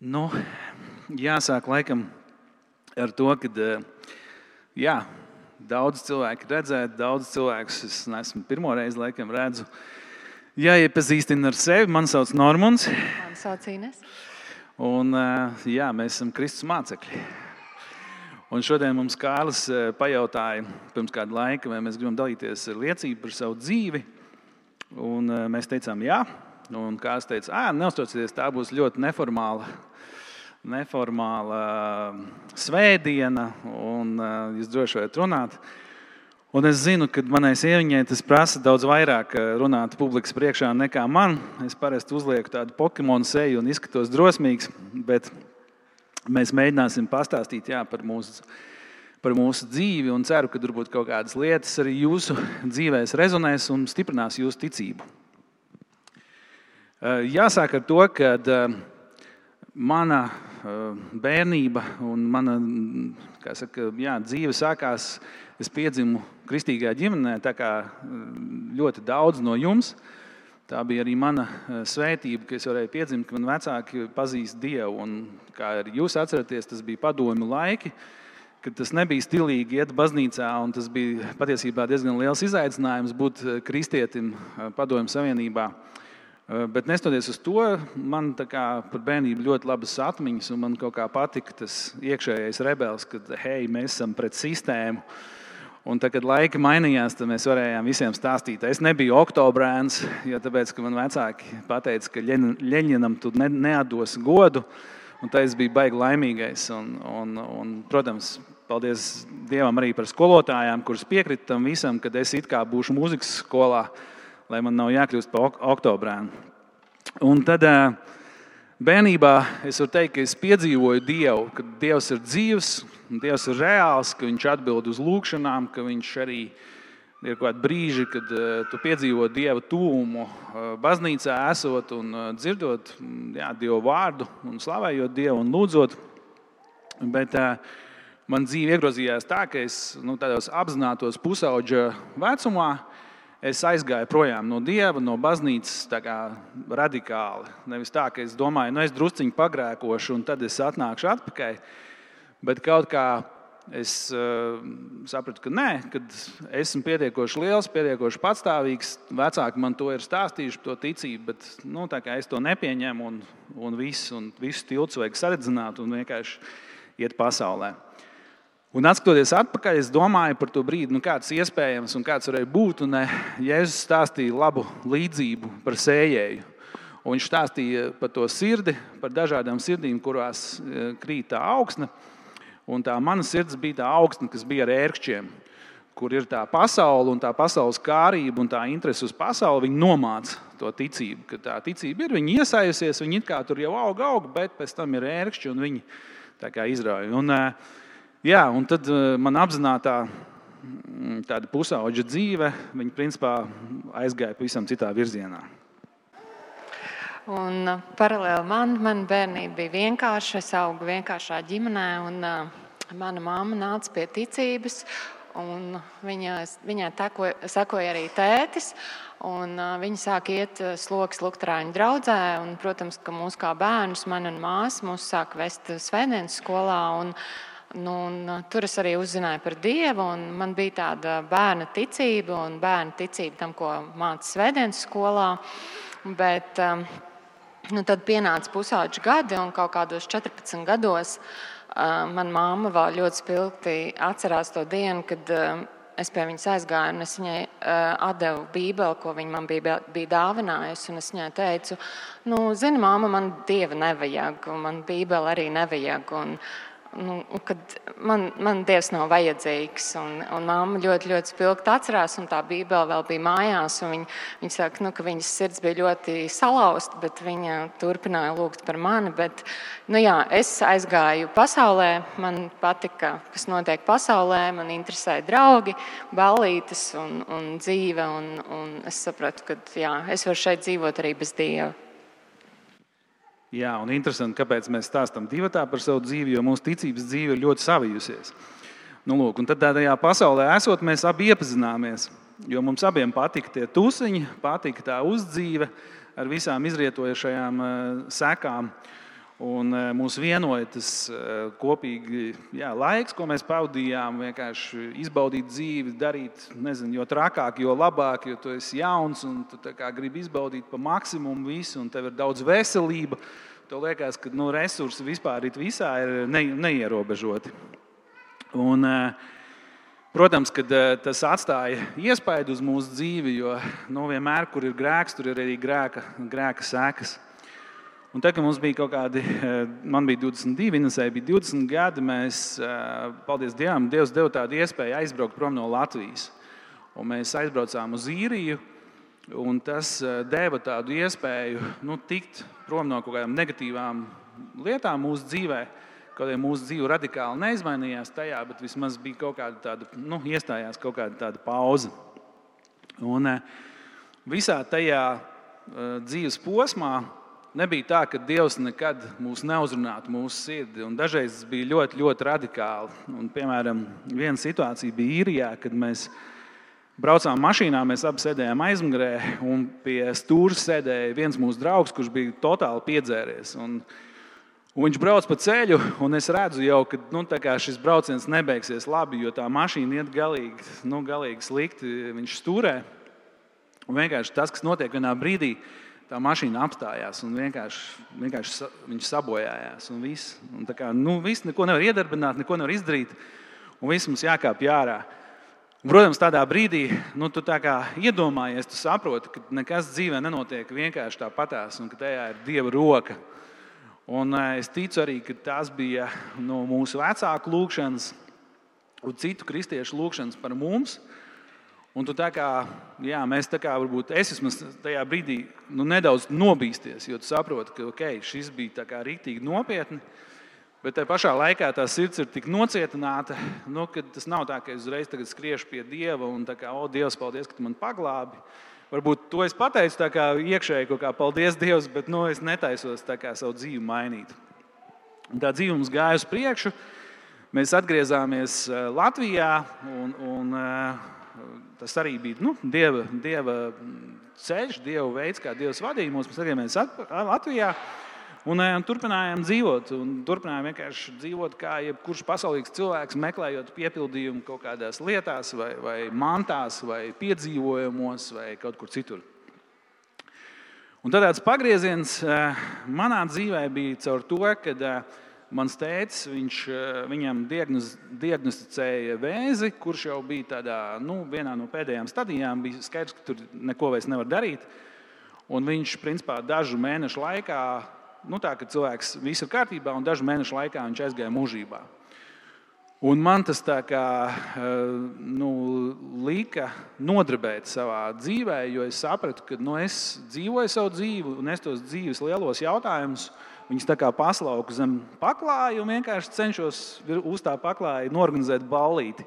Nu, jāsāk laikam ar to, ka daudz cilvēku redzēt, daudz cilvēkus es neesmu pirmo reizi laikam redzu. Jāiepazīstina ar sevi. Mani sauc Normons. Mani sauc Ines. Un mēs esam Kristus mācekļi. Un šodien mums Kārlis pajautāja pirms kāda laika, vai mēs gribam dalīties ar liecību par savu dzīvi. Un mēs teicām jā. Un Kārlis teica, neuztraucieties, tā būs ļoti neformāla svētdiena, un jūs droši varat runāt. Un es zinu, ka manai sieviņai tas prasa daudz vairāk runāt publikas priekšā nekā man. Es parasti uzlieku tādu Pokemonu seju un izskatos drosmīgs, bet mēs mēģināsim pastāstīt par mūsu dzīvi un ceru, ka varbūt kaut kādas lietas arī jūsu dzīvēs rezonēs un stiprinās jūsu ticību. Jāsāk ar to, ka mana bērnība un mana dzīve sākās, es piedzimu kristīgā ģimenē, tā kā ļoti daudz no jums. Tā bija arī mana svētība, ka es varēju piedzimt, ka man vecāki pazīst Dievu. Un, kā arī jūs atceraties, tas bija padomju laiki, kad tas nebija stilīgi iet baznīcā, un tas bija patiesībā diezgan liels izaicinājums būt kristietim padomju savienībā. Bet nestoties uz to, man par bērnību ļoti labas atmiņas, un man kaut kā patika tas iekšējais rebels, kad mēs esam pret sistēmu. Un tad, kad laika mainījās, tad mēs varējām visiem stāstīt. Es nebiju oktobrēns, jo tāpēc, ka man vecāki pateica, ka Ļeņinam tu neatdos godu, un tā es biju baigi laimīgais. Un, protams, paldies Dievam arī par skolotājām, kuras piekrita tam visam, kad es it kā būšu mūzikas skolā, lai man nav jākļūst par oktobrēnu. Un tad bērnībā es varu teikt, ka es piedzīvoju Dievu, ka Dievs ir dzīvs, Dievs ir reāls, ka viņš atbild uz lūkšanām, ka viņš arī ir kaut kādi brīži, kad tu piedzīvo Dieva tūmu baznīcā esot un dzirdot Dievu vārdu un slavējot Dievu un lūdzot. Bet man dzīve iegrozījās tā, ka es tādos apzinātos pusauģa vecumā es aizgāju projām no Dieva, no baznīcas tā kā radikāli. Nevis tā, ka es domāju, es drusciņu pagrēkošu un tad es atnākšu atpakaļ. Bet kaut kā es sapratu, ka nē, kad esmu pietiekoši liels, pietiekoši patstāvīgs. Vecāki man to ir stāstījuši, to ticību, bet tā kā es to nepieņemu un visu tilts vajag saredzināt un vienkārši iet pasaulē. Un atskatoties atpakaļ, es domāju par to brīdi, kāds iespējams un kāds varēja būt. Un Jēzus stāstīja labu līdzību par sējēju. Un viņš stāstīja par to sirdi, par dažādām sirdīm, kurās krīt tā augsne. Un tā mana sirds bija tā augsne, kas bija ar ērkšķiem, kur ir tā pasaule un tā pasaules kārība un tā interese uz pasauli. Viņi nomāca to ticību, ka tā ticība ir, viņi iesajusies, viņi it kā tur jau aug, bet pēc tam ir ērkšķi un viņi tā kā izrauja. Un tad man apzinātā tāda pusauģa dzīve, viņa principā aizgāja pavisam citā virzienā. Un paralēli man bērnība bija vienkārša, es augu vienkāršā ģimenē, un mana mamma nāca pie ticības, un viņai sekoja arī tētis, un viņi sāk iet sloks lukterāņu draudzē, un, protams, ka mūs kā bērnus, man un māsu, mūs sāk vest svētdienas skolā, un tur es arī uzzināju par Dievu, un man bija tāda bērna ticība un bērna ticība tam, ko māca svētdienas skolā. Bet tad pienāca pusauģu gadi, un kaut kādos 14 gados mana mamma vēl ļoti spilgti atcerās to dienu, kad es pie viņas aizgāju, un es viņai atdevu Bībeli, ko viņa man bija dāvinājusi, un es viņai teicu, zini, mamma, man Dieva nevajag, un man Bībeli arī nevajag, kad man Dievs nav vajadzīgs. Un mamma ļoti, ļoti spilgti atcerās, un tā Bībele vēl bija mājās. Viņa saka, ka viņas sirds bija ļoti salauzta, bet viņa turpināja lūgt par mani. Bet, es aizgāju pasaulē, man patika, kas notiek pasaulē, man interesēja draugi, ballītes un dzīve. Un es sapratu, ka es varu šeit dzīvot arī bez Dieva. Jā, un interesanti, kāpēc mēs stāstam divatā par savu dzīvi, jo mūsu ticības dzīve ir ļoti savijusies. Un tad tajā pasaulē esot, mēs abi iepazināmies, jo mums abiem patika tie tusiņi, patika tā uzdzīve ar visām izrietojušajām sekām. Un mūs vienoja tas kopīgi laiks, ko mēs pavadījām, vienkārši izbaudīt dzīvi, darīt, nezinu, jo trakāk, jo labāk, jo tu esi jauns un tu gribi izbaudīt pa maksimumu visu, un tev ir daudz veselība. Tev liekas, ka resursi vispār visā ir neierobežoti. Un, protams, ka tas atstāja iespaidu uz mūsu dzīvi, jo vienmēr, kur ir grēks, tur ir arī grēka sekas. Un tad, kad mums bija kaut kādi, man bija 22, Inesai bija 20 gadi, mēs, paldies Dievam, Dievs deva tādu iespēju aizbraukt prom no Latvijas. Un mēs aizbraucām uz Īriju, un tas deva tādu iespēju tikt prom no kaut kādām negatīvām lietām mūsu dzīvē. Kaut arī mūsu dzīve radikāli neizmainījās tajā, bet vismaz bija kaut kāda tāda, iestājās kaut kāda tāda pauze. Un visā tajā dzīves posmā nebija tā, ka Dievs nekad mūs neuzrunātu mūsu sirdi. Un dažreiz tas bija ļoti, ļoti radikāli. Un, piemēram, viena situācija bija Īrijā, kad mēs braucām mašīnā, mēs abi sēdējām aizmugurē, un pie stūra sēdēja viens mūsu draugs, kurš bija totāli piedzēries. Un viņš brauc pa ceļu, un es redzu jau, ka šis brauciens nebeigsies labi, jo tā mašīna iet galīgi slikti, viņš stūrē. Un vienkārši tas, kas notiek vienā brīdī, tā mašīna apstājās un vienkārši viņš sabojājās. Un viss, viss neko nevar iedarbināt, neko nevar izdarīt, un viss mums jākāp ārā. Un, protams, tādā brīdī tu tā kā iedomājies, tu saproti, ka nekas dzīvē nenotiek vienkārši tāpatās un ka tajā ir Dieva roka. Un es ticu arī, ka tās bija mūsu vecāku lūgšanas un citu kristiešu lūgšanas par mums. Un tu mēs varbūt es vismaz tajā brīdī nedaudz nobīsties, jo tu saproti, ka šis bija riktīgi nopietni, bet tajā pašā laikā tā sirds ir tik nocietināta, ka tas nav tā, ka es uzreiz tagad skriešu pie Dieva un Dievs, paldies, ka tu man paglābi. Varbūt to es pateicu iekšēji kaut kā paldies Dievs, bet es netaisos savu dzīvi mainīt. Un tā dzīve mums gāja uz priekšu, mēs atgriezāmies Latvijā un tas arī bija Dieva ceļš, Dieva veids, kā Dievs vadīja mūs. Mēs atgriezāmies Latvijā un turpinājām dzīvot. Un turpinājām vienkārši dzīvot kā jebkurš pasaulīgs cilvēks, meklējot piepildījumu kaut kādās lietās, vai mantās, vai piedzīvojumos, vai kaut kur citur. Un tad tāds pagrieziens manā dzīvē bija caur to, kad mans tētis, viņam diagnosticēja vēzi, kurš jau bija tādā, vienā no pēdējām stadijām, bija skaidrs, ka tur neko vairs nevar darīt. Un viņš, principā, dažu mēnešu laikā, ka cilvēks viss ir kārtībā, un dažu mēnešu laikā viņš aizgāja mūžībā. Un man tas lika nodarbēt savā dzīvē, jo es sapratu, ka es dzīvoju savu dzīvi, un es tos dzīves lielos jautājumus, viņus paslauku zem paklāja un vienkārši cenšos uz tā paklāja norganizēt ballīti.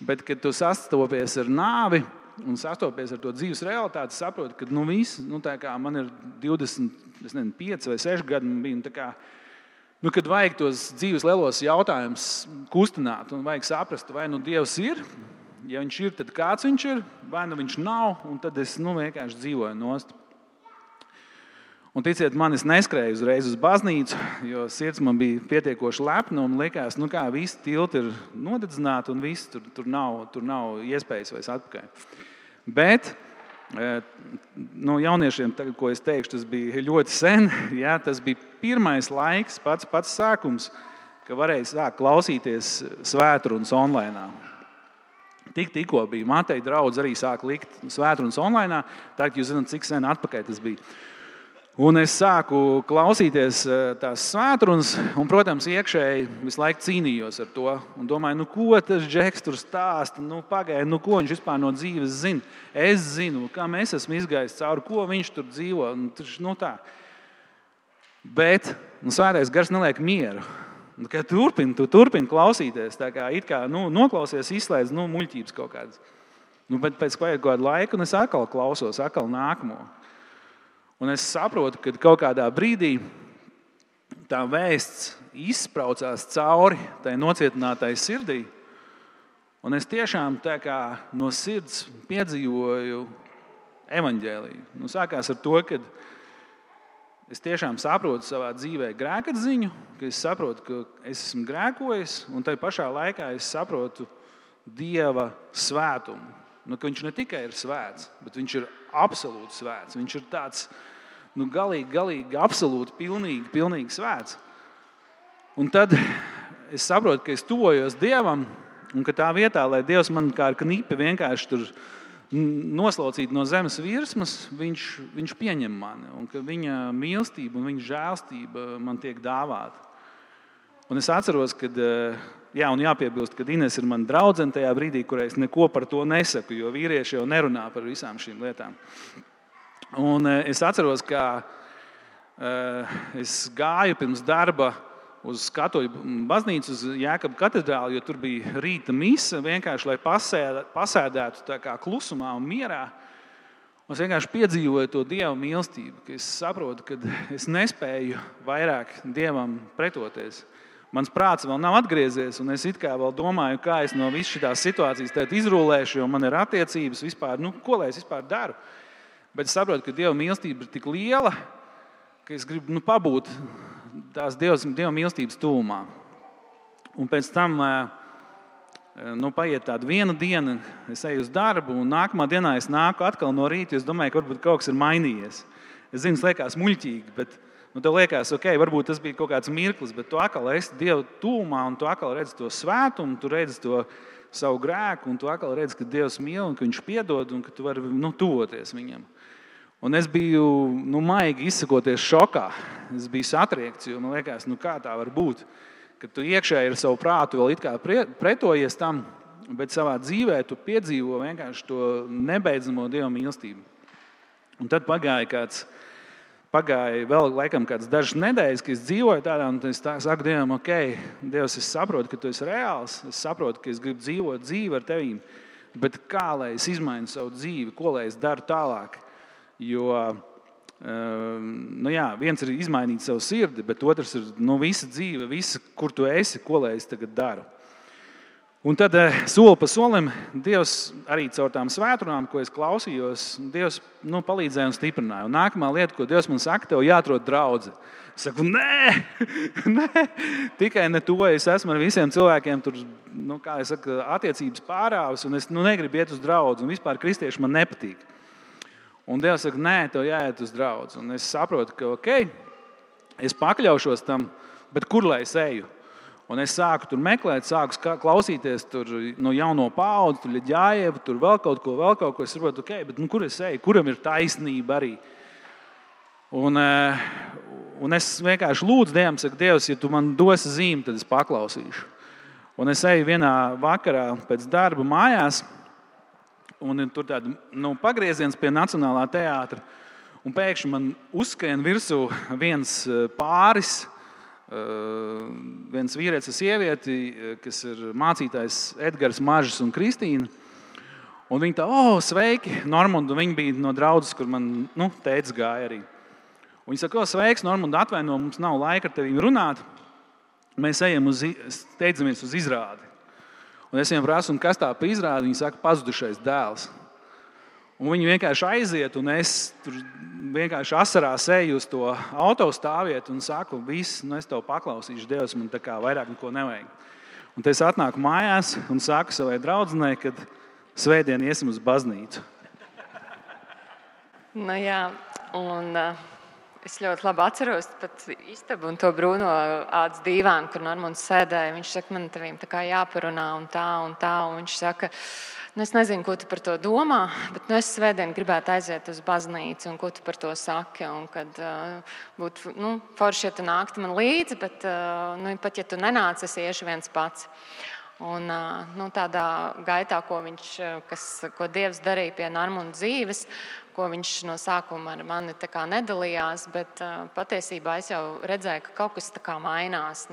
Bet, kad tu sastopies ar nāvi un sastopies ar to dzīves realitāti, saproti, ka viss, man ir 25 vai 6 gadi, man bija, kad vajag tos dzīves lielos jautājumus kustināt un vajag saprast, vai Dievs ir, ja viņš ir, tad kāds viņš ir, vai viņš nav, un tad es vienkārši dzīvoju nost. Un ticiet man, es neskrēju uzreiz uz baznīcu, jo sirds man bija pietiekoši lepna un likās, visi tilti ir nodedzināti un viss, tur nav iespējas vairs atpakaļ. Bet jauniešiem, tagad, ko es teikšu, tas bija ļoti sen, tas bija pirmais laiks, pats sākums, ka varēja sākt klausīties svētrunas online. Tikko bija Mateja draudz arī sāk likt svētrunas online, tagad jūs zināt, cik sen atpakaļ tas bija. Un es sāku klausīties tās svētrunas, un, protams, iekšēji visu laiku cīnījos ar to. Un domāju, ko tas Džeks tur stāsta, pagaidi, ko viņš vispār no dzīves zina. Es zinu, kam es esmu izgājis cauri, ko viņš tur dzīvo. Tā. Bet svētais gars neliek mieru. Tu turpini klausīties, noklausies, izslēdz muļķības kaut kādas. Bet pēc kādu laiku es atkal klausos, atkal nākamo. Un es saprotu, ka kaut kādā brīdī tā vēsts izspraucās cauri tai nocietinātai sirdī. Un es tiešām no sirds piedzīvoju evaņģēliju. Sākās ar to, ka es tiešām saprotu savā dzīvē grēkatziņu, ka es saprotu, ka es esmu grēkojis, un tai pašā laikā es saprotu Dieva svētumu. Ka viņš ne tikai ir svēts, bet viņš ir absolūti svēts. Viņš ir tāds galīgi, absolūti, pilnīgi svēts. Un tad es saprotu, ka es tuvojos Dievam, un ka tā vietā, lai Dievs man kā ar knipi vienkārši tur noslaucīt no zemes virsmas, viņš pieņem mani, un ka viņa mīlestība un viņa žēlstība man tiek dāvāta. Un es atceros, kad, un jāpiebilst, ka Ines ir mana draudzene tajā brīdī, kurā es neko par to nesaku, jo vīrieši jau nerunā par visām šīm lietām. Un es atceros, ka es gāju pirms darba uz Katoļu baznīcu, uz Jēkabu katedrāli, jo tur bija rīta mise, vienkārši lai pasēdētu tā kā klusumā un mierā. Un es vienkārši piedzīvoju to Dieva mīlestību, ka es saprotu, ka es nespēju vairāk Dievam pretoties. Mans prāts vēl nav atgriezies, un es it kā vēl domāju, kā es no visas šitās situācijas tagad izrūlēšu, jo man ir attiecības vispār, ko lai es vispār daru. Bet es saprotu, ka Dieva mīlestība ir tik liela, ka es gribu pabūt tās Dieva mīlestības tuvumā. Un pēc tam paiet tāda viena diena, es eju uz darbu, un nākamā dienā es nāku atkal no rīta, es domāju, ka varbūt kaut kas ir mainījies. Es zinu, tas liekas muļķīgi, bet tev liekas, ok, varbūt tas bija kaut kāds mirklis, bet tu atkal esi Dieva tuvumā, un tu atkal redzi to svētumu, tu redzi to savu grēku, un tu atkal redzi, ka Dievs mīl, un ka viņš piedod, un ka tu vari tuvoties viņam. Un es biju, maigi izsakoties šokā. Es biju satriekts, jo man liekas, kā tā var būt, ka tu iekšēji ar savu prātu vēl it kā pretojies tam, bet savā dzīvē tu piedzīvo vienkārši to nebeidzamo Dieva mīlestību. Un tad pagāja vēl laikam kāds dažas nedēļas, ka es dzīvoju tādā, un es saku Dievam, ok, Dievs, es saprotu, ka tu esi reāls, es saprotu, ka es gribu dzīvot dzīvi ar tevīm, bet kā lai es izmainu savu dzīvi, ko lai es daru tālāk? Jo, viens ir izmainīt savu sirdi, bet otrs ir visa dzīve, kur tu esi, ko lai es tagad daru. Un tad soli pa solim Dievs arī caur tām svētdienām, ko es klausījos, Dievs palīdzēja un stiprināja. Un nākamā lieta, ko Dievs man saka, tev jāatrod draudze. Es saku, nē, tikai ne to, es esmu ar visiem cilvēkiem tur, attiecības pārāvis, un es negribu iet uz draudzi, un vispār kristieši man nepatīk. Un Dievs saka, nē, tev jāiet uz draudzi. Un es saprotu, ka ok, es pakļaušos tam, bet kur lai es eju? Un es sāku tur meklēt, sāku klausīties tur no jauno paudzi, tur Ļaģājevu, tur vēl kaut ko. Es saprotu, ok, bet kur es eju? Kuram ir taisnība arī? Un es vienkārši lūdzu Dievam, saku, Dievs, ja tu man dosi zīmi, tad es paklausīšu. Un es eju vienā vakarā pēc darba mājās, un tur tāda pagrieziens pie Nacionālā teātra, un pēkšņi man uzskrien virsū viens pāris, viens vīrietis un sievieti, kas ir mācītājs Edgars, Mažs un Kristīna. Un viņi tā, sveiki, Normund, un viņi bija no draudzes, kur man tētis gāja arī. Un viņi saka, sveiks, Normund, atvaino, mums nav laika ar tevi runāt. Mēs ejam steidzamies uz izrādi. Un es viņiem prasu, kas tā pa izrādi, viņi saka, pazudušais dēls. Un viņi vienkārši aiziet, un es tur vienkārši asarās eju uz to autostāvvietu un saku, viss, es tev paklausīšu, Dievs, man tā kā vairāk neko nevajag. Un tad es atnāku mājās un saku savai draudzenei, kad svētdien iesim uz baznīcu. Es ļoti labi atceros pat istabu un to brūno ādas dīvānu, kur Normunds sēdēja. Viņš saka, man tevīm tā kā jāparunā un tā. Un viņš saka, es nezinu, ko tu par to domā, bet es svētdien gribētu aiziet uz baznīcu, un ko tu par to saki. Un kad būtu forši, ja tu nāktu man līdzi, bet pat ja tu nenāc, es iešu viens pats. Un tādā gaitā, ko Dievs darīja pie Normunda dzīves, ko viņš no sākuma ar mani tā kā nedalījās, bet patiesībā es jau redzēju, ka kaut kas tā kā mainās.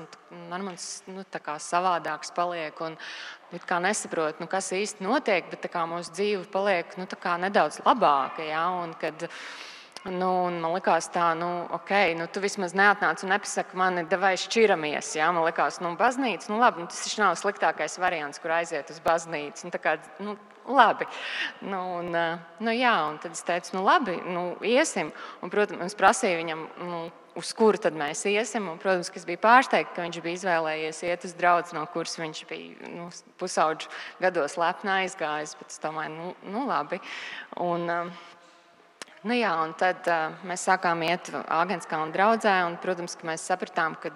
Normunds tā kā savādāks paliek un kā nesaprot, kas īsti notiek, bet tā kā mūsu dzīve paliek tā kā nedaudz labāka. Ja? Un kad man likās tā, ok, tu vismaz neatnāc un nepasaki mani, davai šķiramies. Ja? Man likās, baznīca, labi, tas nav sliktākais variants, kur aiziet uz baznīcu. labi. Jā, un tad es teicu, labi, iesim. Un, protams, es prasīju viņam, uz kuru tad mēs iesim. Un, protams, ka es biju pārsteigta, ka viņš bija izvēlējies iet uz draudzi, no kuras viņš bija pusauģu gados lepni aizgājis. Bet es domāju, labi. Un tad mēs sākām iet Āgenskalna draudzē, un, protams, ka mēs sapratām, ka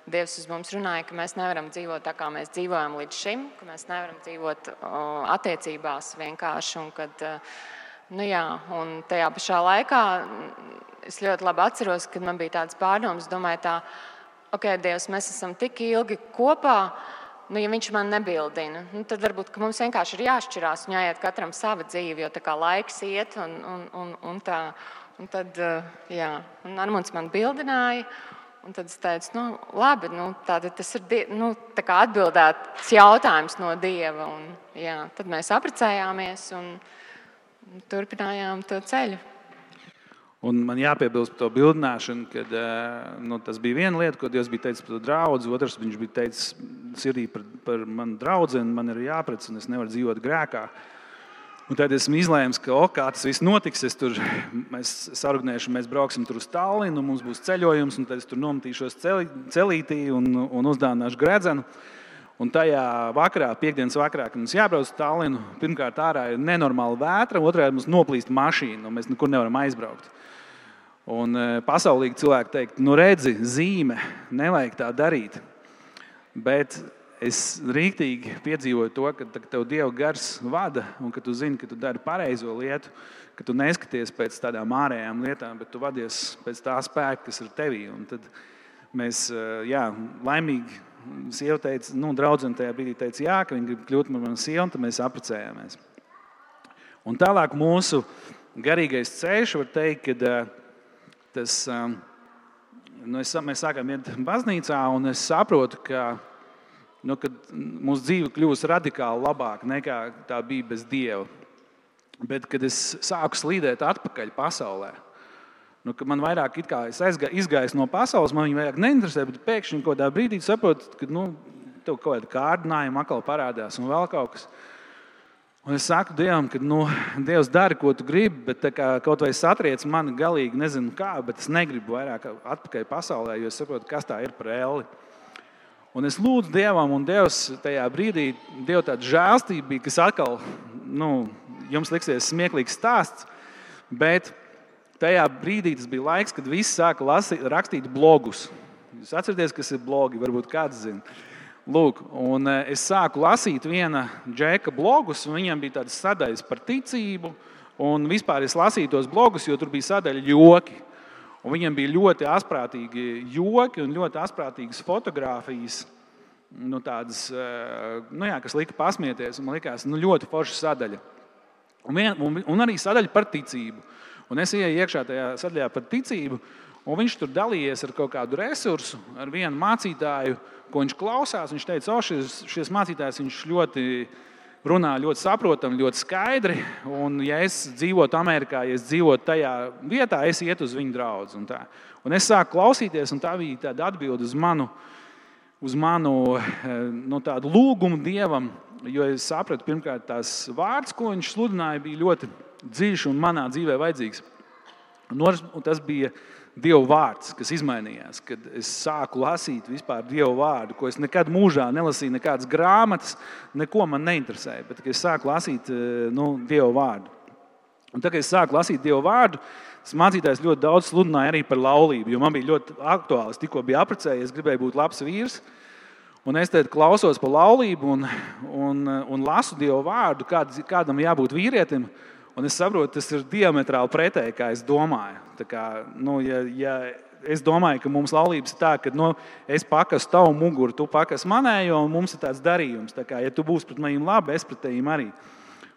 Dievs uz mums runāja, ka mēs nevaram dzīvot tā, kā mēs dzīvojam līdz šim, ka mēs nevaram dzīvot attiecībās vienkārši, un kad, un tajā pašā laikā es ļoti labi atceros, kad man bija tāds pārdoms, domāju ok, Dievs, mēs esam tik ilgi kopā, ja viņš man nebildina, tad varbūt mums vienkārši ir jāšķirās un jāiet katram sava dzīve, jo tā kā laiks iet un tā. Un tad, un Armunds man bildināja, un tad es teicu, labi, tātad tas ir tā kā atbildēts jautājums no Dieva. Un, tad mēs apprecējāmies un turpinājām to ceļu. Un man jāpiebilst par to bildināšanu, kad tas bija viena lieta, ko Dievs bija teicis par to draudzi. Otrs, viņš bija teicis sirdī par manu draudzeni, man ir jāprec, un es nevaru dzīvot grēkā. Un tad esmu izlēmis, ka kā tas viss notiks, mēs sarunāšu, mēs brauksim tur uz Tallinu, mums būs ceļojums, un tad es tur nometīšos celītī un uzdāvināšu gredzenu. Un tajā vakarā, piekdienas vakarā, kad mums jābrauc uz Tallinu, pirmkārt ārā ir nenormāla vētra, otrā mums noplīst mašīna, un mēs nekur nevaram aizbraukt. Un pasaulīgi cilvēki teikt, redzi, zīme, nevajag tā darīt. Bet es rīktīgi piedzīvoju to, ka tev Dieva gars vada, un ka tu zini, ka tu dari pareizo lietu, ka tu neskaties pēc tādām ārējām lietām, bet tu vadies pēc tā spēka, kas ir tevī. Un tad mēs, laimīgi, sieva teica, draudzene tajā brīdī teica, ka viņa grib kļūt par manu sievu, un tad mēs apprecējāmies. Un tālāk mūsu garīgais ceļš, var teikt, ka mēs sākām iet baznīcā, un es saprotu, ka kad mūsu dzīve kļūst radikāli labāka nekā tā bija bez Dieva. Bet, kad es sāku slīdēt atpakaļ pasaulē, ka man vairāk es izgājis no pasaules, man viņa vairāk neinteresē, bet pēkšņi kaut kādā brīdī saprotu, ka tev kaut kāda kārdinājuma atkal parādās un vēl kaut kas. Un es saku Dievam, ka Dievs dara, ko tu gribi, bet kaut vai satriec mani galīgi, nezinu kā, bet es negribu vairāk atpakaļ pasaulē, jo es saprotu, kas tā ir par elli. Un es lūdzu Dievam, un Dievs tajā brīdī, Dieva tāda žēlstība bija, kas atkal, jums liksies smieklīgs stāsts, bet tajā brīdī tas bija laiks, kad visi sāka rakstīt blogus. Jūs atceraties, kas ir blogi, varbūt kāds zina. Lūk, un es sāku lasīt viena džeka blogus, un viņam bija tādas sadaļas par ticību, un vispār es lasīju tos blogus, jo tur bija sadaļa joki. Un viņam bija ļoti asprātīgi joki un ļoti asprātīgas fotogrāfijas, tādas, kas lika pasmieties, un man likās, ļoti forša sadaļa. Un arī sadaļa par ticību. Un es ieju iekšā tajā sadaļā par ticību, un viņš tur dalījies ar kaut kādu resursu, ar vienu mācītāju, ko viņš klausās. Viņš teica, šis mācītājs viņš ļoti runā, ļoti saprotam, ļoti skaidri. Un ja es dzīvotu Amerikā, ja es dzīvotu tajā vietā, es ietu uz viņu draudzi. Un es sāku klausīties, un tā bija tāda atbilde uz manu tādu lūgumu Dievam, jo es sapratu, pirmkārt, tās vārds, ko viņš sludināja, bija ļoti dziļš un manā dzīvē vajadzīgs. Un tas bija Dieva vārds, kas izmainījās, kad es sāku lasīt vispār Dieva vārdu, ko es nekad mūžā nelasīju, nekādas grāmatas, neko man neinteresēja, bet kad es sāku lasīt Dieva vārdu. Un tad, kad es sāku lasīt Dieva vārdu, tas mācītājs ļoti daudz sludināja arī par laulību, jo man bija ļoti aktuāli. Es tikko biju apprecējies, gribēju būt labs vīrs, un es tad klausos par laulību un lasu Dieva vārdu, kādam jābūt vīrietim. Un es saprotu, tas ir diametrāli pretēji, kā es domāju. Tā kā, ja es domāju, ka mums laulības ir tā, ka es pakasu tavu muguru, tu pakasi manējo, un mums ir tāds darījums. Tā kā, ja tu būsi pret maniem labi, es pret tevīm arī.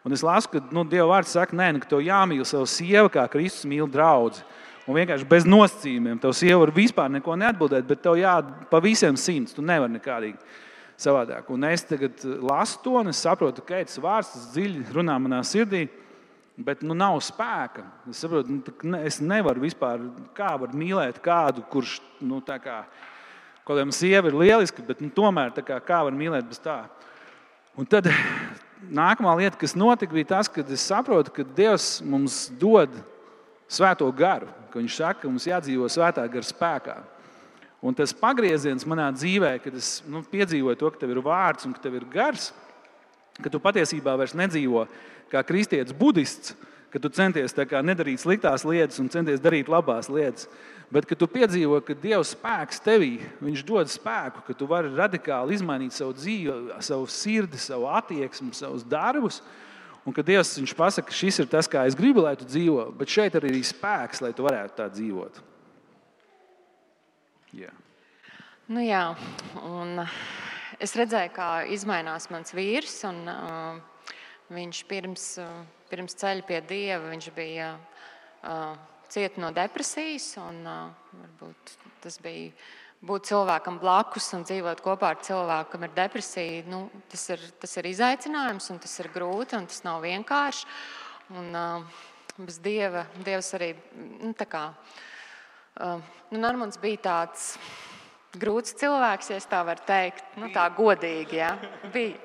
Un es lasu, ka Dieva vārds saka, ka tev jāmīl savu sievu, kā Kristus mīl draudzi. Un vienkārši bez nosacījumiem. Tev sieva var vispār neko neatbildēt, bet tev pa visiem 100. Tu nevari nekādīgi savādāk. Un es tagad lasu to, un es saprotu, ka tas vārds tas dziļi runā manā sirdī. Bet nav spēka. Es saprotu, es nevaru vispār, kā var mīlēt kādu, kurš, kaut kādam sieva ir lieliski, bet tomēr kā var mīlēt bez tā. Un tad nākamā lieta, kas notika, bija tas, ka es saprotu, ka Dievs mums dod svēto garu, ka viņš saka, ka mums jādzīvo svētā gara spēkā. Un tas pagrieziens manā dzīvē, kad es piedzīvoju to, ka tev ir vārds un ka tev ir gars, ka tu patiesībā vairs nedzīvo kā kristietis budists, ka tu centies nedarīt sliktās lietas un centies darīt labās lietas, bet ka tu piedzīvo, ka Dieva spēks tevī, viņš dod spēku, ka tu vari radikāli izmainīt savu dzīvi, savu sirdi, savu attieksmi, savus darbus, un ka Dievs viņš pasaka, ka šis ir tas, kā es gribu, lai tu dzīvo, bet šeit arī ir spēks, lai tu varētu tā dzīvot. Yeah. Jā, un es redzēju, kā izmainās mans vīrs, un viņš pirms ceļa pie Dieva viņš bija cieta no depresijas, un varbūt tas bija būt cilvēkam blakus un dzīvot kopā ar cilvēku, kam ir depresija. Tas ir izaicinājums, un tas ir grūti, un tas nav vienkārši. Un bez Dieva, Dievs arī Narmonds bija tāds grūts cilvēks, ja es tā varu teikt, tā godīgi, ja, bija.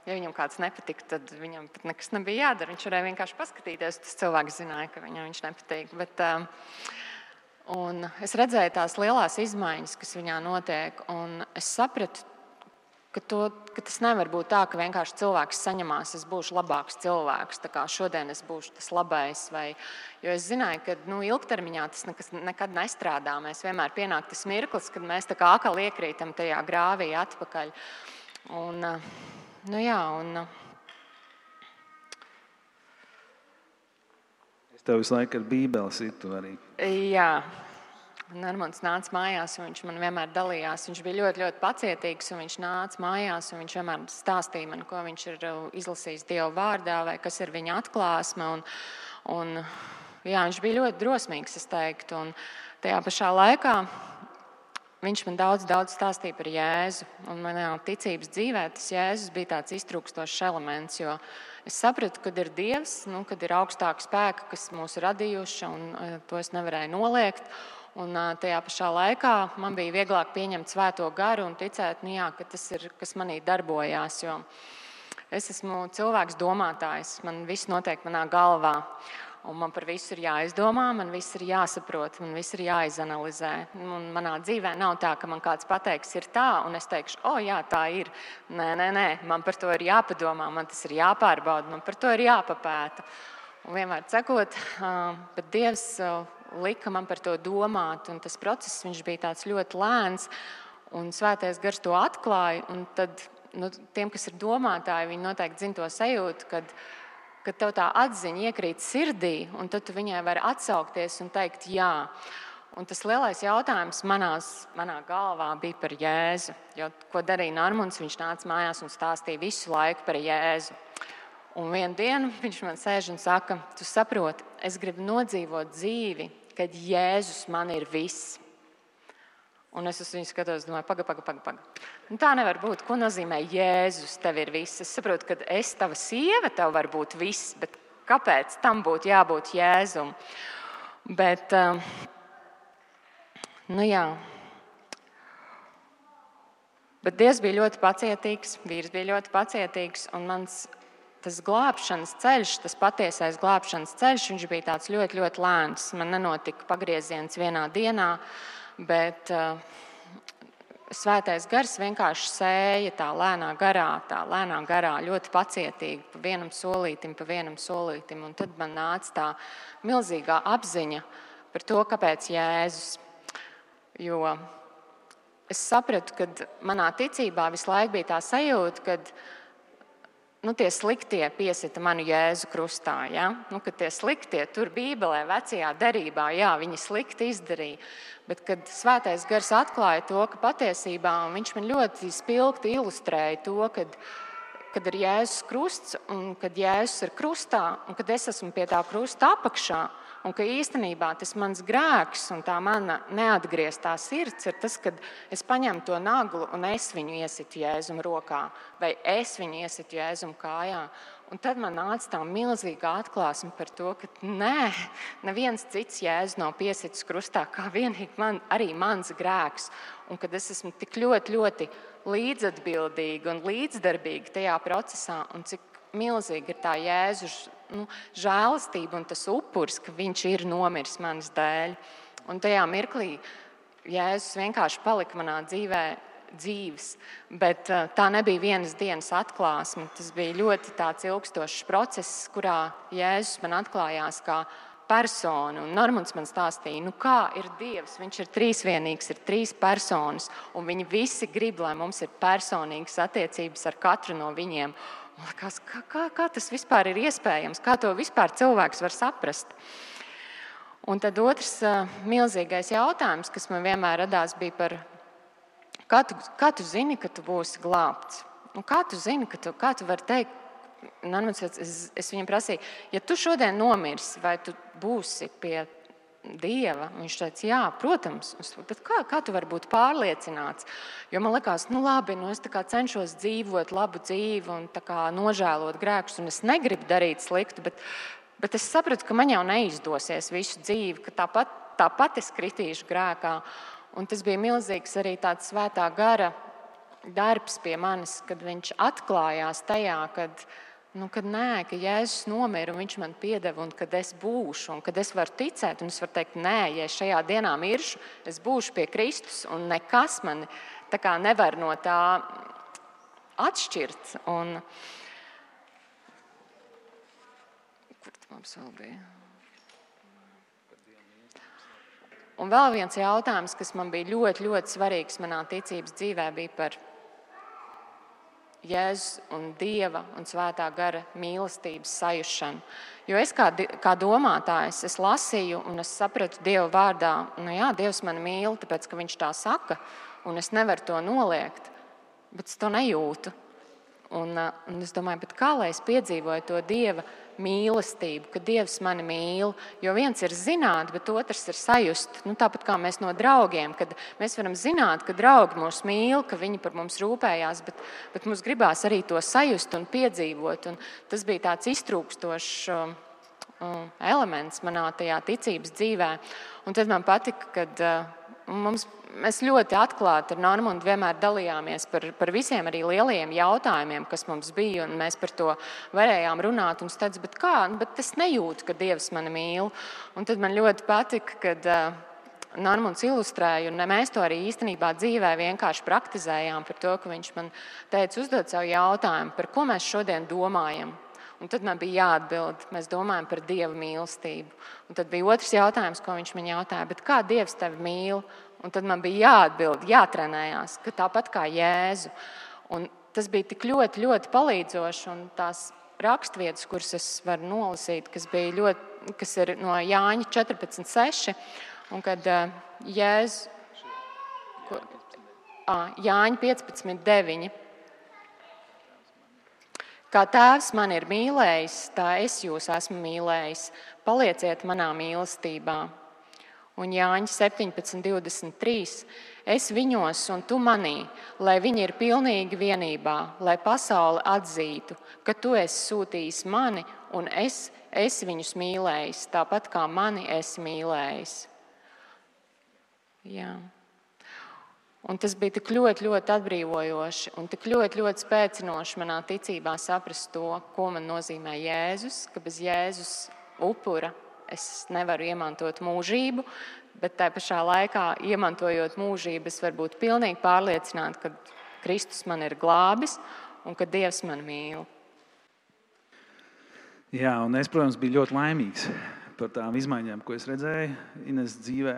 Ja viņam kāds nepatika, tad viņam pat nekas nebija jādara. Viņš varēja vienkārši paskatīties, tas cilvēks zināja, ka viņam viņš nepatīk. Un es redzēju tās lielās izmaiņas, kas viņā notiek, un es sapratu, ka tas nevar būt tā, ka vienkārši cilvēks saņemās, es būšu labāks cilvēks, tā kā šodien es būšu tas labais. Jo es zināju, ka ilgtermiņā tas nekad nestrādā. Mēs vienmēr pienāk tas mirklis, kad mēs tā kā akal iekrītam tajā grāvī atpakaļ. Es tev visu laiku ar bībeli situ arī. Jā. Narmonds nāca mājās, un viņš man vienmēr dalījās. Viņš bija ļoti, ļoti pacietīgs, un viņš nāca mājās, un viņš vienmēr stāstīja man, ko viņš ir izlasījis Dieva vārdā, vai kas ir viņa atklāsme. Viņš bija ļoti drosmīgs, es teiktu. Un tajā pašā laikā viņš man daudz stāstīja par Jēzu. Un manā ticības dzīvē tas Jēzus bija tāds iztrūkstošs elements, jo es sapratu, kad ir Dievs, kad ir augstāka spēka, kas mūs radījuši, un to es nevarēju noliegt. Un tajā pašā laikā man bija vieglāk pieņemt svēto garu un ticēt, ka tas ir, kas manī darbojās. Jo es esmu cilvēks domātājs, man viss notiek manā galvā. Un man par visu ir jāizdomā, man viss ir jāsaprot, man viss ir jāizanalizē. Un manā dzīvē nav tā, ka man kāds pateiks, ir tā, un es teikšu, jā, tā ir. Nē, man par to ir jāpadomā, man tas ir jāpārbauda, man par to ir jāpapēta. Un vienmēr sakot, bet Dievs lika man par to domāt, un tas process viņš bija tāds ļoti lēns, un Svētais Gars to atklāja. Un tad tiem, kas ir domātāji, viņi noteikti zina to sajūtu, kad tev tā atziņa iekrīt sirdī, un tad tu viņai vari atsaukties un teikt jā. Un tas lielais jautājums manā galvā bija par Jēzu. Jo, ko darīja Narmonds, viņš nāca mājās un stāstīja visu laiku par Jēzu. Un vienu dienu viņš man sēž un saka, tu saproti, es gribu nodzīvot dzīvi, kad Jēzus man ir viss. Un es uz viņu skatos, domāju, paga. Tā nevar būt. Ko nozīmē Jēzus tev ir viss? Es saprotu, ka es tava sieva, tev var būt viss, bet kāpēc tam būtu jābūt Jēzum? Bet, Bet Dievs bija ļoti pacietīgs, vīrs bija ļoti pacietīgs, un tas glābšanas ceļš, tas patiesais glābšanas ceļš, viņš bija tāds ļoti, ļoti lēns. Man nenotika pagrieziens vienā dienā, bet Svētais Gars vienkārši sēja tā lēnā garā, ļoti pacietīgi, pa vienam solītim. Un tad man nāca tā milzīgā apziņa par to, kāpēc Jēzus. Jo es sapratu, ka manā ticībā visu laiku bija tā sajūta, ka tie sliktie piesita manu Jēzu krustā. Ja? Kad tie sliktie tur Bībelē, vecajā derībā, viņi slikti izdarīja. Bet kad Svētais Gars atklāja to, ka patiesībā viņš man ļoti spilgti ilustrēja to, kad ir Jēzus krusts un kad Jēzus ir krustā un kad es esmu pie tā krusta apakšā un ka īstenībā tas mans grēks un tā mana neatgrieztā sirds ir tas, kad es paņemu to naglu un es viņu iesitu Jēzum rokā vai es viņu iesitu Jēzum kājā. Un tad man nāca tā milzīga atklāsme par to, ka neviens cits Jēzus nav piesitis krustā, kā vienīgi arī mans grēks. Un kad es esmu tik ļoti, ļoti līdzatbildīgi un līdzdarbīgi tajā procesā, un cik milzīgi ir tā Jēzus žēlastība un tas upuris, ka viņš ir nomiris manas dēļ. Un tajā mirklī Jēzus vienkārši palika manā dzīvē dzīves, bet tā nebija vienas dienas atklāsme. Tas bija ļoti tāds ilgstošs process, kurā Jēzus man atklājās kā persona. Un Normunds man stāstīja, kā ir Dievs. Viņš ir trīsvienīgs, ir 3 personas, un viņi visi grib, lai mums ir personīgas attiecības ar katru no viņiem. Man liekas, kā tas vispār ir iespējams? Kā to vispār cilvēks var saprast? Un tad otrs milzīgais jautājums, kas man vienmēr radās, bija par kā tu zini, ka tu būsi glābts? Kā tu zini, kā tu vari teikt? Es viņam prasīju, ja tu šodien nomirsi, vai tu būsi pie Dieva? Viņš teica, jā, protams. Bet kā tu vari būt pārliecināts? Jo man likās, labi, es tā kā cenšos dzīvot labu dzīvi un tā kā nožēlot grēkus, un es negribu darīt sliktu, bet es sapratu, ka man jau neizdosies visu dzīvi, ka tāpat es kritīšu grēkā. Un tas bija milzīgs arī tāds svētā gara darbs pie manis, kad viņš atklājās tajā, kad Jēzus nomira un viņš man piedeva, un kad es būšu, un kad es varu ticēt, un es varu teikt, ja es šajā dienā miršu, es būšu pie Kristus, un nekas mani tā kā nevar no tā atšķirt. Un kur tas mums vēl bija? Un vēl viens jautājums, kas man bija ļoti, ļoti svarīgs manā ticības dzīvē, bija par Jēzus un Dieva un svētā gara mīlestības sajušanu. Jo es kā domātājs, es lasīju un es sapratu Dieva vārdā, Dievs mani mīl, tāpēc, ka viņš tā saka, un es nevaru to noliegt, bet es to nejūtu. Un es domāju, bet kā lai es piedzīvoju to Dieva mīlestību, ka Dievs mani mīl? Jo viens ir zināt, bet otrs ir sajust. Tāpat kā mēs no draugiem, kad mēs varam zināt, ka draugi mūs mīl, ka viņi par mums rūpējās, bet mums gribās arī to sajust un piedzīvot. Un tas bija tāds iztrūkstošs elements manā tajā ticības dzīvē. Un tad man patika, kad mēs ļoti atklāti ar Normundu vienmēr dalījāmies par visiem arī lielajiem jautājumiem, kas mums bija, un mēs par to varējām runāt. Un es teicu, bet es nejūtu, ka Dievs mani mīl. Un tad man ļoti patika, kad Normunds ilustrēja, un mēs to arī īstenībā dzīvē vienkārši praktizējām par to, ka viņš man teica, uzdod savu jautājumu, par ko mēs šodien domājam. Un tad man bija jāatbild, mēs domājam par Dieva mīlestību. Un tad bija otrs jautājums, ko viņš man jautāja, bet kā Dievs tevi mīl? Un tad man bija jāatbild, jātrenējās, ka tāpat kā Jēzu. Un tas bija tik ļoti, ļoti palīdzoši, un tās rakstvietas, kuras es varu nolasīt, kas ir no Jāņa 14:6, un kad Jēzu Jāņa 15:9. Kā Tēvs man ir mīlējis, tā es jūs esmu mīlējis. Palieciet manā mīlestībā. Un Jāņa 17:23. Es viņos un tu manī, lai viņi ir pilnīgi vienībā, lai pasaule atzītu, ka tu esi sūtījis mani un es viņus mīlējis, tāpat kā mani esi mīlējis. Jā. Un tas bija tik ļoti, ļoti atbrīvojoši un tik ļoti, ļoti spēcinoši manā ticībā saprast to, ko man nozīmē Jēzus, ka bez Jēzus upura es nevaru iemantot mūžību, bet tā pašā laikā, iemantojot mūžību, es varu būt pilnīgi pārliecināta, ka Kristus man ir glābis un ka Dievs man mīl. Jā, un es, protams, biju ļoti laimīgs par tām izmaiņām, ko es redzēju Ines dzīvē.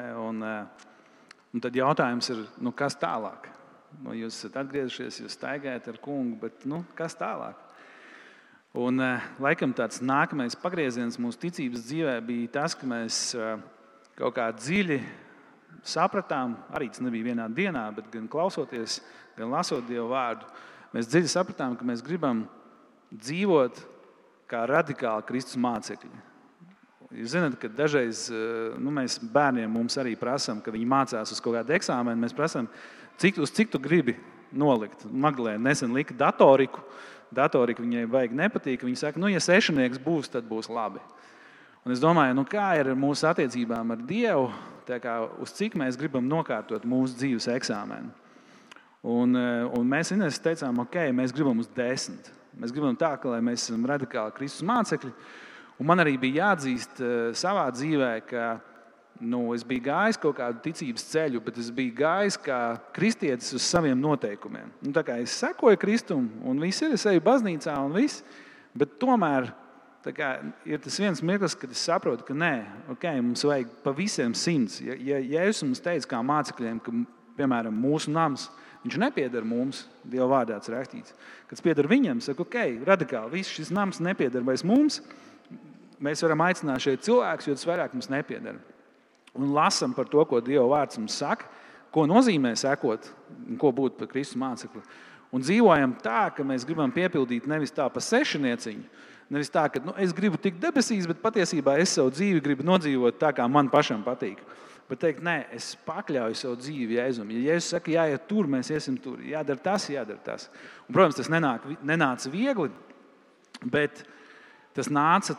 Un tad jautājums ir, kas tālāk? Jūs esat atgriezušies, jūs staigājat ar kungu, bet kas tālāk? Un laikam tāds nākamais pagrieziens mūsu ticības dzīvē bija tas, ka mēs kaut kā dziļi sapratām, arī tas nebija vienā dienā, bet gan klausoties, gan lasot Dieva vārdu, mēs dziļi sapratām, ka mēs gribam dzīvot kā radikāli Kristus mācekļi. Jūs zināt, ka dažreiz mēs bērniem mums arī prasām, ka viņi mācās uz kaut kādu eksāmenu. Mēs prasām, uz cik tu gribi nolikt. Magdalēna nesen lika datoriku. Datorika viņai vajag nepatīk. Viņa saka, ja 6 būs, tad būs labi. Un es domāju, kā ir ar mūsu attiecībām ar Dievu, tā kā uz cik mēs gribam nokārtot mūsu dzīves eksāmenu. Un mēs Ines teicām, ok, mēs gribam uz 10. Mēs gribam tā, ka mēs esam radikāli Kristus mācekļi. Un man arī bija jāatzīst savā dzīvē, ka es biju gājis kaut kādu ticības ceļu, bet es biju gājis kā kristietis uz saviem noteikumiem. Tā kā es sekoju Kristum, un viss ir, es eju baznīcā un viss, bet tomēr ir tas viens mirklis, kad es saprotu, ka nē, okay, mums vajag pa visiem 100. Ja Jēzus mums teica kā mācekļiem, ka, piemēram, mūsu nams, viņš nepieder mums, Dieva vārdā tas rakstīts. Kad pieder viņam, saka, ok, radikāli, viss šis nams nepieder vairs mums, mēs varam aicināt šeit cilvēkus, jo tas vairāk mums nepieder. Un lasam par to, ko Dieva vārds mums saka, ko nozīmē sekot, ko būt par Kristus mācekli. Un dzīvojam tā, ka mēs gribam piepildīt nevis tā pa sešnieciņu, nevis tā, ka es gribu tikt debesīs, bet patiesībā es savu dzīvi gribu nodzīvot tā, kā man pašam patīk. Bet teikt, nē, es pakļauju savu dzīvi Jēzum. Ja Jēzus saka, jāiet tur, mēs iesim tur. Jādara tas. Un, protams, tas nenāca viegli, bet tas nāca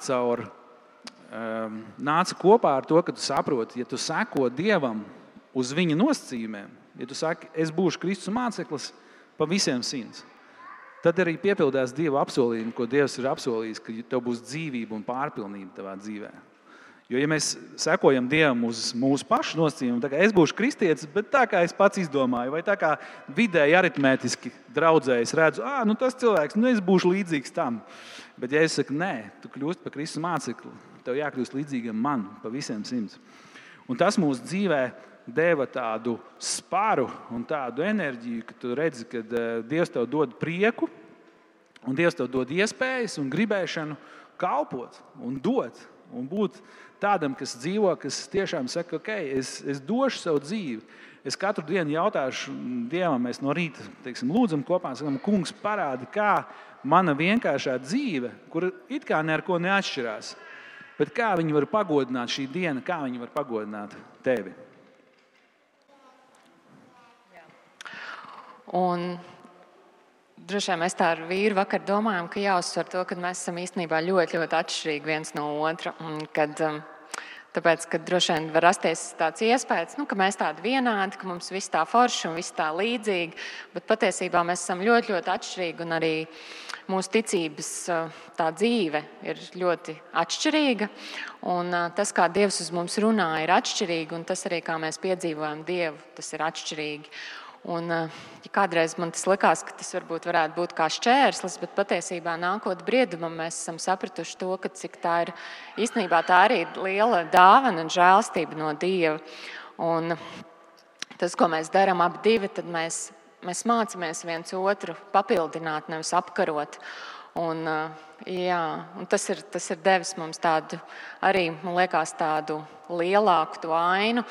kopā ar to, ka tu saproti, ja tu seko Dievam uz viņa nosacījumiem, ja tu saki, es būšu Kristus māceklis pa visiem 100, tad arī piepildās Dieva apsolījumi, ko Dievs ir apsolījis, ka tev būs dzīvība un pārpilnība tavā dzīvē. Jo, ja mēs sekojam Dievam uz mūsu pašu nosacījumiem, tā kā es būšu kristietis, bet tā kā es pats izdomāju, vai tā kā vidēji aritmētiski draudzēji, es redzu, tas cilvēks, es būšu līdzīgs tam. Bet ja es saku, nē, tu kļūst par Kristus mācekli, tev jākļūst līdzīgam man pa visiem 100. Un tas mūsu dzīvē deva tādu spāru un tādu enerģiju, ka tu redzi, ka Dievs tev dod prieku un Dievs tev dod iespējas un gribēšanu kalpot un dot un būt tādam, kas dzīvo, kas tiešām saka, ok, es došu savu dzīvi. Es katru dienu jautāšu Dievam, mēs no rīta lūdzam kopā, sakam, kungs parādi, kā mana vienkāršā dzīve, kur it kā ne ar ko neatšķirās, bet kā viņi var pagodināt šī diena, kā viņi var pagodināt tevi. Un droši vien mēs tā ar vīru vakar domājam, ka jāuzsver to, ka mēs esam īstenībā ļoti, ļoti atšķirīgi viens no otra. Tāpēc, ka droši vien var rasties tāds iespējas, ka mēs tādi vienādi, ka mums viss tā forši un viss tā līdzīgi, bet patiesībā mēs esam ļoti, ļoti atšķirīgi un arī mūsu ticības tā dzīve ir ļoti atšķirīga. Un tas, kā Dievs uz mums runā, ir atšķirīgi, un tas arī, kā mēs piedzīvojam Dievu, tas ir atšķirīgi. Un, ja kādreiz man tas likās, ka tas varbūt varētu būt kā šķērslis, bet patiesībā nākot briedumam mēs esam sapratuši to, ka cik tā ir īstenībā tā arī liela dāvana un žēlstība no Dieva. Un tas, ko mēs darām abi divi, tad mēs mācāmies viens otru papildināt, nevis apkarot. Un tas ir devis mums tādu arī, man liekas, tādu lielāku to ainu.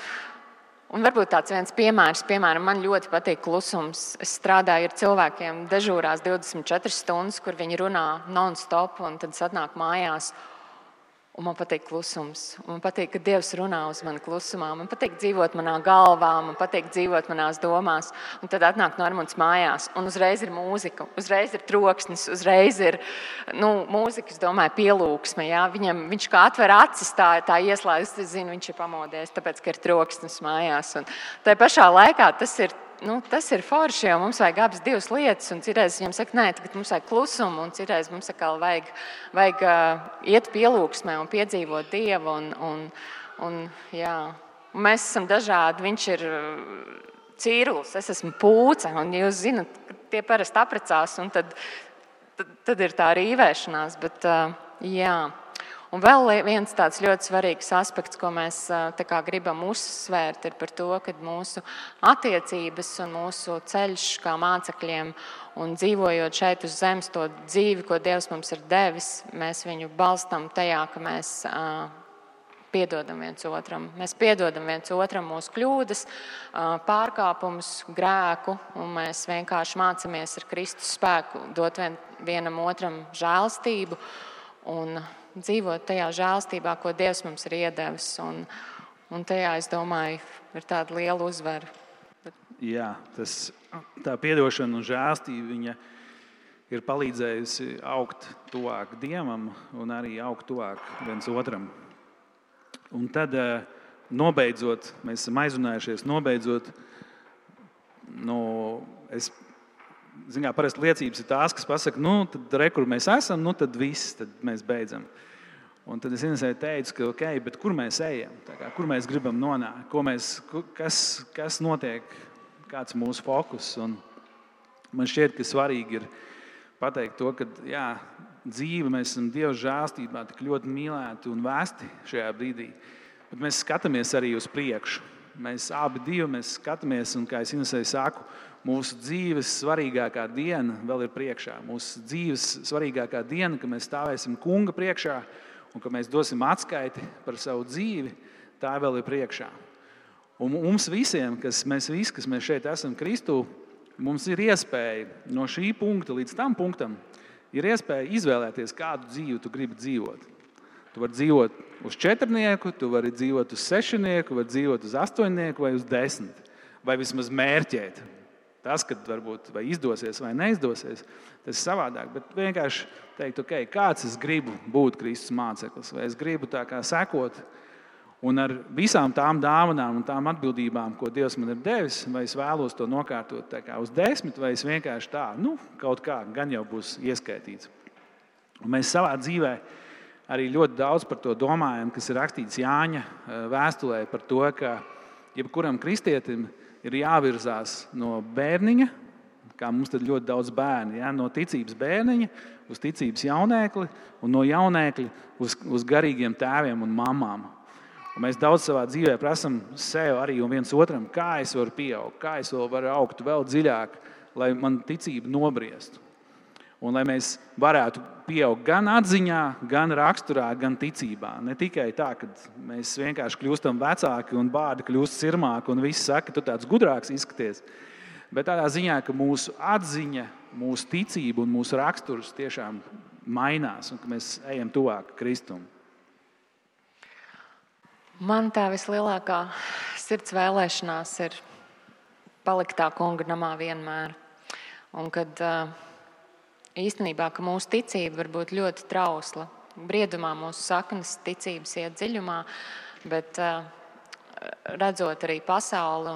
Un varbūt tāds viens piemērs, man ļoti patīk klusums. Es strādāju ar cilvēkiem dežūrās 24 stundas, kur viņi runā non-stop, un tad atnāk mājās. Un man patīk klusums. Man patīk, ka Dievs runā uz mani klusumā. Man patīk dzīvot manā galvā, man patīk dzīvot manās domās. Un tad atnāk Normunds mājās, un uzreiz ir mūzika, uzreiz ir troksnis, uzreiz ir mūzikas, domāju, pielūgsme. Jā? Viņš kā atver acis, tā ieslēdz, es zinu, viņš ir pamodies, tāpēc, ka ir troksnis mājās. Un tai pašā laikā tas ir forši, jo mums vajag abas divas lietas, un citreiz viņam saka, nē, tagad mums vajag klusumu, un citreiz mums atkal vajag iet pielūgsmē un piedzīvot Dievu, un mēs esam dažādi, viņš ir cīrulis, es esmu pūce, un jūs zinat, tie parasti apprecās, un tad ir tā rīvēšanās, bet Un vēl viens tāds ļoti svarīgs aspekts, ko mēs gribam uzsvērt, ir par to, ka mūsu attiecības un mūsu ceļš kā mācekļiem un dzīvojot šeit uz zemes to dzīvi, ko Dievs mums ir devis, mēs viņu balstam tajā, ka mēs piedodam viens otram. Mēs piedodam viens otram mūsu kļūdas, pārkāpumus, grēku, un mēs vienkārši mācāmies ar Kristus spēku dot vienam otram žēlstību un dzīvot tajā žēlstībā, ko Dievs mums ir iedevis. Un tajā, es domāju, ir tāda liela uzvara. Jā, tā piedošana un žēlstība viņa ir palīdzējusi augt tuvāk Dievam un arī augt tuvāk viens otram. Un tad, nobeidzot, mēs esam aizrunājušies, nobeidzot parasti liecības ir tās, kas pasaka, tad re, kur mēs esam, tad viss, tad mēs beidzam. Un tad es Inesei teicu, ka ok, bet kur mēs ejam, kur mēs gribam nonākt, kas notiek, kāds ir mūsu fokus. Un man šķiet, ka svarīgi ir pateikt to, ka dzīve, mēs esam Dieva žēlstībā tik ļoti mīlēti un vēsti šajā brīdī, bet mēs skatāmies arī uz priekšu. Mēs abi skatāmies, un kā es Inesei saku, mūsu dzīves svarīgākā diena vēl ir priekšā. Mūsu dzīves svarīgākā diena, ka mēs stāvēsim Kunga priekšā un ka mēs dosim atskaiti par savu dzīvi, tā vēl ir priekšā. Un mums visiem, kas mēs šeit esam Kristū, mums ir iespēja no šī punkta līdz tam punktam, ir iespēja izvēlēties, kādu dzīvi tu gribi dzīvot. Tu vari dzīvot uz 4, tu vari dzīvot uz 6, vari dzīvot uz 8 vai uz 10, vai vismaz mērķēt. Tas, kad varbūt vai izdosies vai neizdosies, tas ir savādāk. Bet vienkārši teikt, ok, kāds es gribu būt Kristus māceklis, vai es gribu tā kā sekot, un ar visām tām dāvanām un tām atbildībām, ko Dievs man ir devis, vai es vēlos to nokārtot tā kā uz 10, vai es vienkārši tā, kaut kā gan jau būs ieskaitīts. Un mēs savā dzīvē arī ļoti daudz par to domājam, kas ir rakstīts Jāņa vēstulē par to, ka jebkuram kristietim ir jāvirzās no bērniņa, kā mums tad ļoti daudz bērni, no ticības bērniņa uz ticības jaunēkli un no jaunēkļa uz garīgiem tēviem un mamām. Un mēs daudz savā dzīvē prasam sev arī un viens otram, kā es varu pieaugt, kā es varu augt vēl dziļāk, lai man ticība nobriestu. Un lai mēs varētu pieaugt gan atziņā, gan raksturā, gan ticībā. Ne tikai tā, ka mēs vienkārši kļūstam vecāki un bārdi kļūst sirmāki un visi saka, tu tāds gudrāks izskaties. Bet tādā ziņā, ka mūsu atziņa, mūsu ticība un mūsu raksturs tiešām mainās un ka mēs ejam tuvāk Kristum. Man tā vislielākā sirds vēlēšanās ir palikt tā Kunga namā vienmēr. Un kad īstenībā, ka mūsu ticība var būt ļoti trausla. Briedumā mūsu saknes ticības iet dziļumā, bet redzot arī pasauli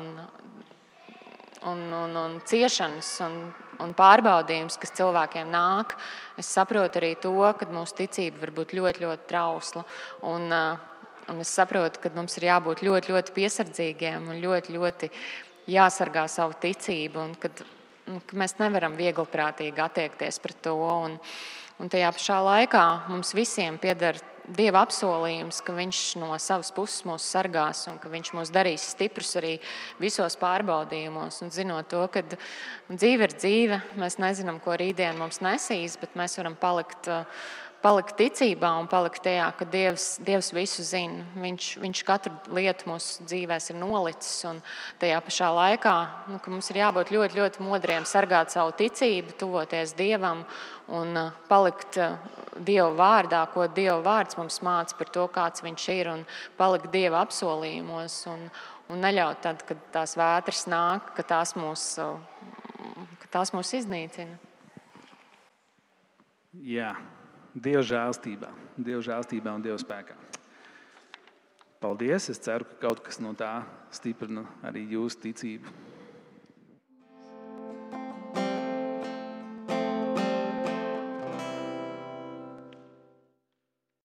un ciešanas un pārbaudījumus, kas cilvēkiem nāk, es saprotu arī to, ka mūsu ticība var būt ļoti, ļoti trausla. Un es saprotu, ka mums ir jābūt ļoti, ļoti piesardzīgiem un ļoti, ļoti jāsargā savu ticību un ka mēs nevaram viegliprātīgi attiekties pret to. Un tajā pašā laikā mums visiem pieder Dieva apsolījums, ka Viņš no savas puses mūs sargās un ka Viņš mūs darīs stiprus arī visos pārbaudījumos. Un zinot to, ka dzīve ir dzīve, mēs nezinām, ko rītdien mums nesīs, bet mēs varam palikt ticībā un palikt tajā, ka Dievs visu zina. Viņš katru lietu mūsu dzīvēs ir nolicis. Un tajā pašā laikā ka mums ir jābūt ļoti, ļoti modriem, sargāt savu ticību, tuvoties Dievam un palikt Dieva vārdā, ko Dieva vārds mums māca par to, kāds Viņš ir, un palikt Dieva apsolījumos un neļaut tad, kad tās vētras nāk, ka tās mūs iznīcina. Jā. Dieva žēlstībā un Dieva spēkā. Paldies! Es ceru, ka kaut kas no tā stiprina arī jūsu ticību.